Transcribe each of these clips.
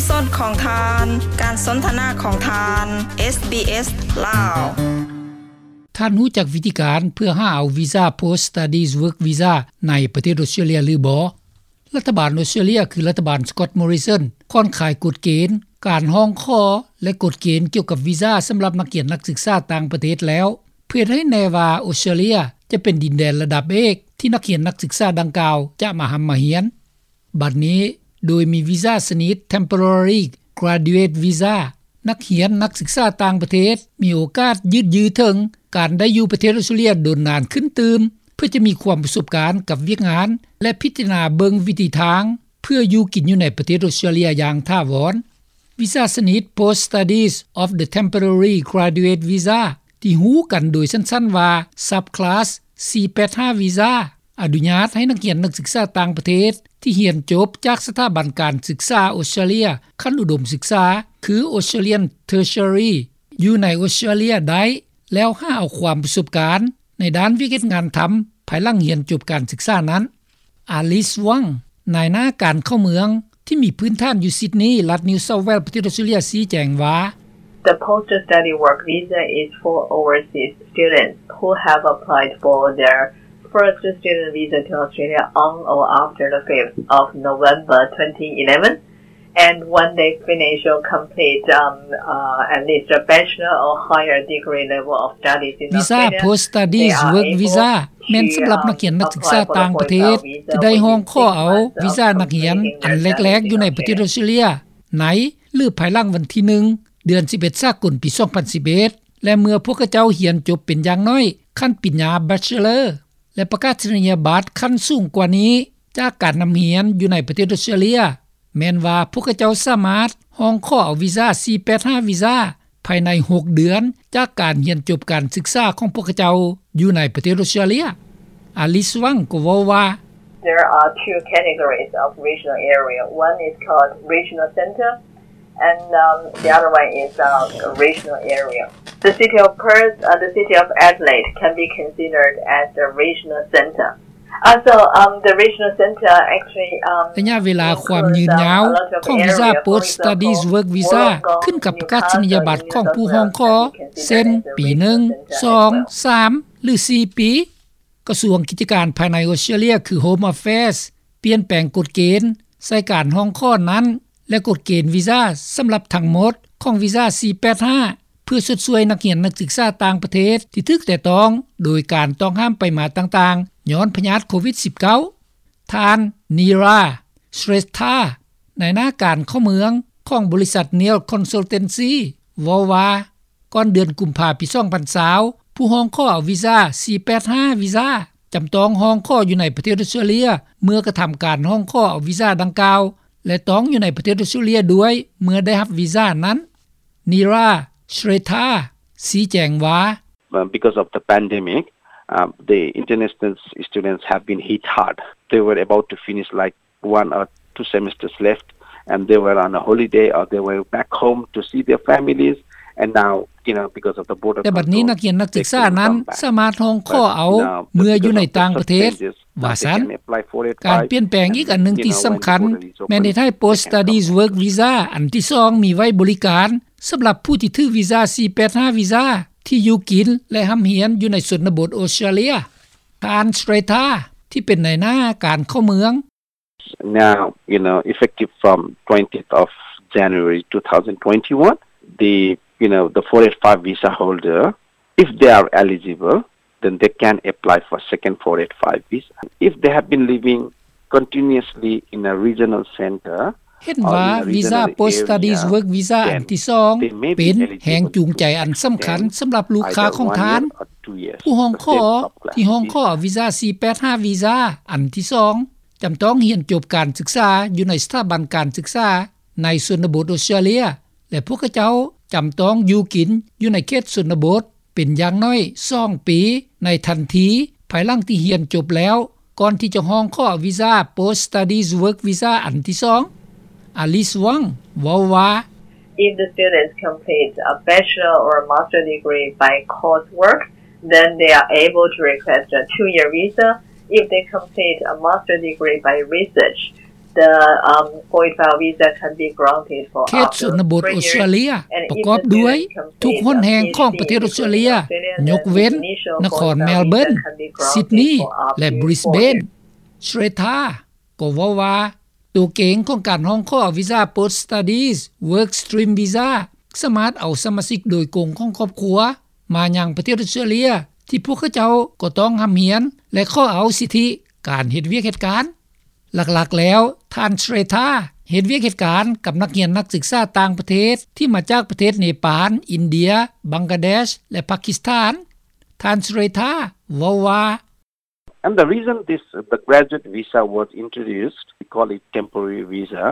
ສອນຂອງທ່ານ ການສົນທະນາຂອງທ່ານ ເອສບີເອສ ລາວ. ທ່ານຮູ້ຈັກວິທີການເພື່ອຫາເອົາວີຊາ Post Studies Work Visa ໃນປະເທດອົດສະຕຣາເລຍຫຼືບໍ່? ລັດຖະບານອົດສະຕຣາເລຍ ຄືລັດຖະບານ Scott Morrison ຜ່ອນຄາຍກົດເກນການຮ້ອງຂໍ ແລະ ກົດເກນກ່ຽວກັບວີຊາສຳລັບນັກຮຽນນັກສຶກສາຕ່າງປະເທດແລ້ວ ເພື່ອເຮັດໃຫ້ແນ່ວ່າອົດສະຕຣາເລຍຈະເປັນດິນແດນລະດັບເອກ ທີ່ນັກຮຽນນັກສຶກສາດັ່ງກ່າວຈະມາຮ່ຳມາຮຽນ. ບັດນີ້ ໂດຍມີວີຊາຊະນິດ Temporary Graduate Visa ນັກຮຽນນັກສຶກສາຕ່າງປະເທດມີໂອກາດຢືດຍືເຖິງການໄດ້ຢູ່ປະເທດອົດສະຕຣາເລຍດົນນານຂຶ້ນຕື່ມ ເພື່ອຈະມີຄວາມປະສົບການກັບວຽກງານ ແລະ ພິຈາລະນາເບິ່ງວິທີທາງ ເພື່ອຢູ່ກິນຢູ່ໃນປະເທດອົດສະຕຣາເລຍຢ່າງຖາວອນ. ວີຊາຊະນິດ Post Studies of the Temporary Graduate Visa ທີ່ຮູ້ກັນໂດຍສັ້ນໆວ່າ Subclass ສີ່ແປດຫ້າ Visa ອະນຸຍາດໃຫ້ນັກຮຽນນັກສຶກສາຕ່າງປະເທດ ທີ່ຮຽນຈົບຈາກສະຖາບັນການສຶກສາອົດສະຕຣາເລຍຂັ້ນອຸດົມສຶກສາ ຄື Australian Tertiary ຢູ່ໃນອົດສະຕຣາເລຍໄດ້ ແລ້ວຫາເອົາຄວາມປະສົບການໃນດ້ານວຽກເຮັດງານທຳ ພາຍຫຼັງຮຽນຈົບການສຶກສານັ້ນ. Alice Wang ນາຍໜ້າການເຂົ້າເມືອງ ທີ່ມີພື້ນຖານຢູ່ Sydney ລັດ New South Wales ປະເທດອົດສະຕຣາເລຍ ຊີ້ແຈງວ່າ The post study work visa is for overseas students who have applied for their first student visa to Australia on or after the fifth of November twenty eleven, and when they finish or complete, um, uh, at least a bachelor or higher degree level of studies in Australia, they are able to, um, apply for the foreign work visa. ແມ່ນສຳລັບນັກຮຽນນັກສຶກສາຕ່າງປະເທດ ທີ່ໄດ້ຮ້ອງຂໍເອົາວີຊານັກຮຽນອັນແລກໆຢູ່ໃນປະເທດອົດສະຕຣາເລຍ ໃນ ຫຼື ພາຍຫຼັງວັນທີໜຶ່ງ ເດືອນສິບເອັດ ສາກົນ ປີສອງພັນສິບເອັດ ແລະ ເມື່ອພວກເຂົາເຈົ້າຮຽນຈົບເປັນຢ່າງໜ້ອຍຂັ້ນປະລິນຍາ Bachelor ແລະ ປະກາສະນີຍະບັດຂັ້ນສູງກວ່ານີ້ ຈາກການນຳຮຽນຢູ່ໃນປະເທດອົດສະຕຣາເລຍ ແມ່ນວ່າພວກເຂົາເຈົ້າສາມາດຮ້ອງຂໍເອົາວີຊາ ສີ່ແປດຫ້າ ວີຊາ ພາຍໃນຫົກເດືອນ ຈາກການຮຽນຈົບການສຶກສາຂອງພວກເຂົາເຈົ້າຢູ່ໃນປະເທດອົດສະຕຣາເລຍ. Alice Wang ກໍເວົ້າວ່າ There are two categories of regional area. One is called regional center, and, um, the other one is, uh, regional area. The city of Perth, uh, the city of Adelaide can be considered as the regional center. Uh, so, um, the regional center actually, um, ໄລຍະເວລາຄວາມຍືນຍາວຂອງວີຊາ Post Studies Work Visa ຂຶ້ນກັບປະກາສະນີຍະບັດຂອງຜູ້ຮ້ອງຂໍ ເຊັ່ນ ປີໜຶ່ງ ສອງ ສາມ ຫຼື ສີ່ປີ. ກະຊວງກິດຈະການພາຍໃນອົດສະຕຣາເລຍ ຄື Home Affairs ປ່ຽນແປງກົດເກນໃສ່ການຮ້ອງຂໍນັ້ນ ແລະ ກົດເກນວີຊາສຳລັບທັງໝົດຂອງວີຊາ ສີ່ແປດຫ້າ ເພື່ອຊົດຊ່ວຍນັກຮຽນນັກສຶກສາຕ່າງປະເທດທີ່ຖືກແຕະຕ້ອງໂດຍການຕ້ອງຫ້າມໄປມາຕ່າງໆ ຍ້ອນພະຍາດໂຄວິດສິບເກົ້າ. ທ່ານ ນີຣາ ເຊຣດທາ ນາຍໜ້າການເຂົ້າເມືອງຂອງບໍລິສັດ Neil Consultancy ເວົ້າວ່າ ກ່ອນເດືອນກຸມພາ ປີສອງພັນຊາວ ຜູ້ຮ້ອງຂໍເອົາວີຊາ ສີ່ແປດຫ້າ ວີຊາ ຈຳຕ້ອງຮ້ອງຂໍຢູ່ໃນປະເທດອົດສະຕຣາເລຍ ເມື່ອກະທຳການຮ້ອງຂໍເອົາວີຊາດັ່ງກ່າວ ແລະ ຕ້ອງຢູ່ໃນປະເທດອົດສະຕຣາເລຍດ້ວຍ ເມື່ອໄດ້ຮັບວີຊານັ້ນ. ນີຣາ ເຊຣດທາ ຊີ້ແຈງວ່າ Uh, because of the pandemic, uh, the international students have been hit hard. They were about to finish, like, one or two semesters left, and they were on a holiday or they were back home to see their families, and now, you know, because of the border control, they couldn't come back. ແຕ່ບັດນີ້ນັກຮຽນນັກສຶກສານັ້ນສາມາດຮ້ອງຂໍເອົາເມືອຢູ່ໃນຕ່າງປະເທດ ວ່າຊັ້ນ. ການປ່ຽນແປງອີກອັນໜຶ່ງທີ່ສຳຄັນ ແມ່ນເຮັດໃຫ້ Post Studies Work Visa ອັນທີສອງ ມີໄວ້ບໍລິການສຳລັບຜູ້ທີ່ຖືກວີຊາ ສີ່ແປດຫ້າ ວີຊາ ທີ່ຢູ່ກິນ ແລະ ຮ່ຳຮຽນຢູ່ໃນຊົນນະບົດອົດສະຕຣາເລຍ. ທ່ານ ເຊຣດທາ ທີ່ເປັນນາຍໜ້າການເຂົ້າເມືອງ Now, you know, effective from twentieth of January two thousand twenty-one, the, you know, the four eight five visa holder, if they are eligible, then they can apply for second four eight five visa. If they have been living continuously in a regional center, ເຫັນວ່າວີຊາ Post Studies Work Visa ອັນທີສອງ ເປັນແຮງຈູງໃຈອັນສຳຄັນສຳລັບລູກຄ້າຂອງທ່ານ. ຜູ້ຮ້ອງຂໍທີ່ຮ້ອງຂໍວີຊາ ສີ່ແປດຫ້າ ວີຊາ ອັນທີສອງ ຈຳຕ້ອງຮຽນຈົບການສຶກສາຢູ່ໃນສະຖາບັນການສຶກສາໃນຊົນນະບົດອົດສະຕຣາເລຍ ແລະ ພວກເຂົາເຈົ້າຈຳຕ້ອງຢູ່ກິນຢູ່ໃນເຂດຊົນນະບົດເປັນຢ່າງໜ້ອຍສອງປີ ໃນທັນທີພາຍຫຼັງທີ່ຮຽນຈົບແລ້ວ ກ່ອນທີ່ຈະຮ້ອງຂໍວີຊາ Post Studies Work Visa ອັນທີສອງ. Alice Wang ເວົ້າວ່າ If the students complete a bachelor or a master degree by coursework, then they are able to request a two-year visa. If they complete a master degree by research, เขตชนบทออสเตรเลีย ประกอบด้วยทุกหนแห่งของประเทศออสเตรเลีย ยกเว้นนครเมลเบิร์น ซิดนีย์ และบริสเบน เชรทา ก็เว้าว่า ตัวเกณฑ์ของการร้องขอวีซ่า Post Studies Work Stream Visa สามารถเอาสมาชิกโดยกงของครอบครัว มายังประเทศออสเตรเลีย ที่พวกเขาเจ้าก็ต้องร่ำเรียน และขอเอาสิทธิการเฮ็ดเวียกเฮ็ดการ หลักๆ แล้ว ท่านเชรทา เฮ็ดเวียกเฮ็ดการกับนักเรียนนักศึกษาต่างประเทศ ที่มาจากประเทศเนปาล อินเดีย บังกลาเดช และปากีสถาน ท่านเชรทา เว้าว่า And the reason this, the graduate visa was introduced, we call it temporary visa,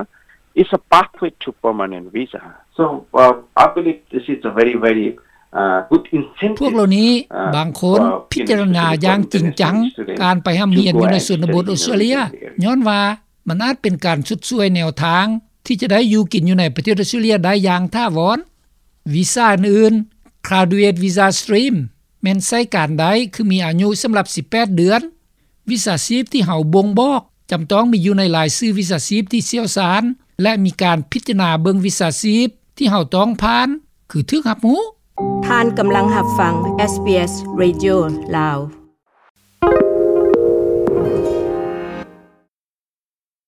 is a pathway to permanent visa. So, uh, I believe this is a very, very, uh, good incentive, พวกเหล่านี้ uh, บางคน for, you know, พิจารณาอย่างจริงจัง students, การไปร่ำเรียนอยู่ในชนบทออสเตรเลีย ย้อนว่ามันอาจเป็นการชดช่วยแนวทาง ที่จะได้อยู่กินอยู่ในประเทศออสเตรเลียได้อย่างถาวร วีซ่าอื่นๆ Graduate Visa Stream แม่นใช้การได้คือมีอายุสำหรับสิบแปดเดือน วิชาชีพที่เฮาบ่งบอก จำต้องมีอยู่ในรายชื่อวิชาชีพที่เชี่ยวชาญ และมีการพิจารณาเบิ่งวิชาชีพที่เฮาต้องผ่าน คือถูกรับรู้. ທ່ານກຳລັງຮັບຟັງ SBS Radio ລາວ.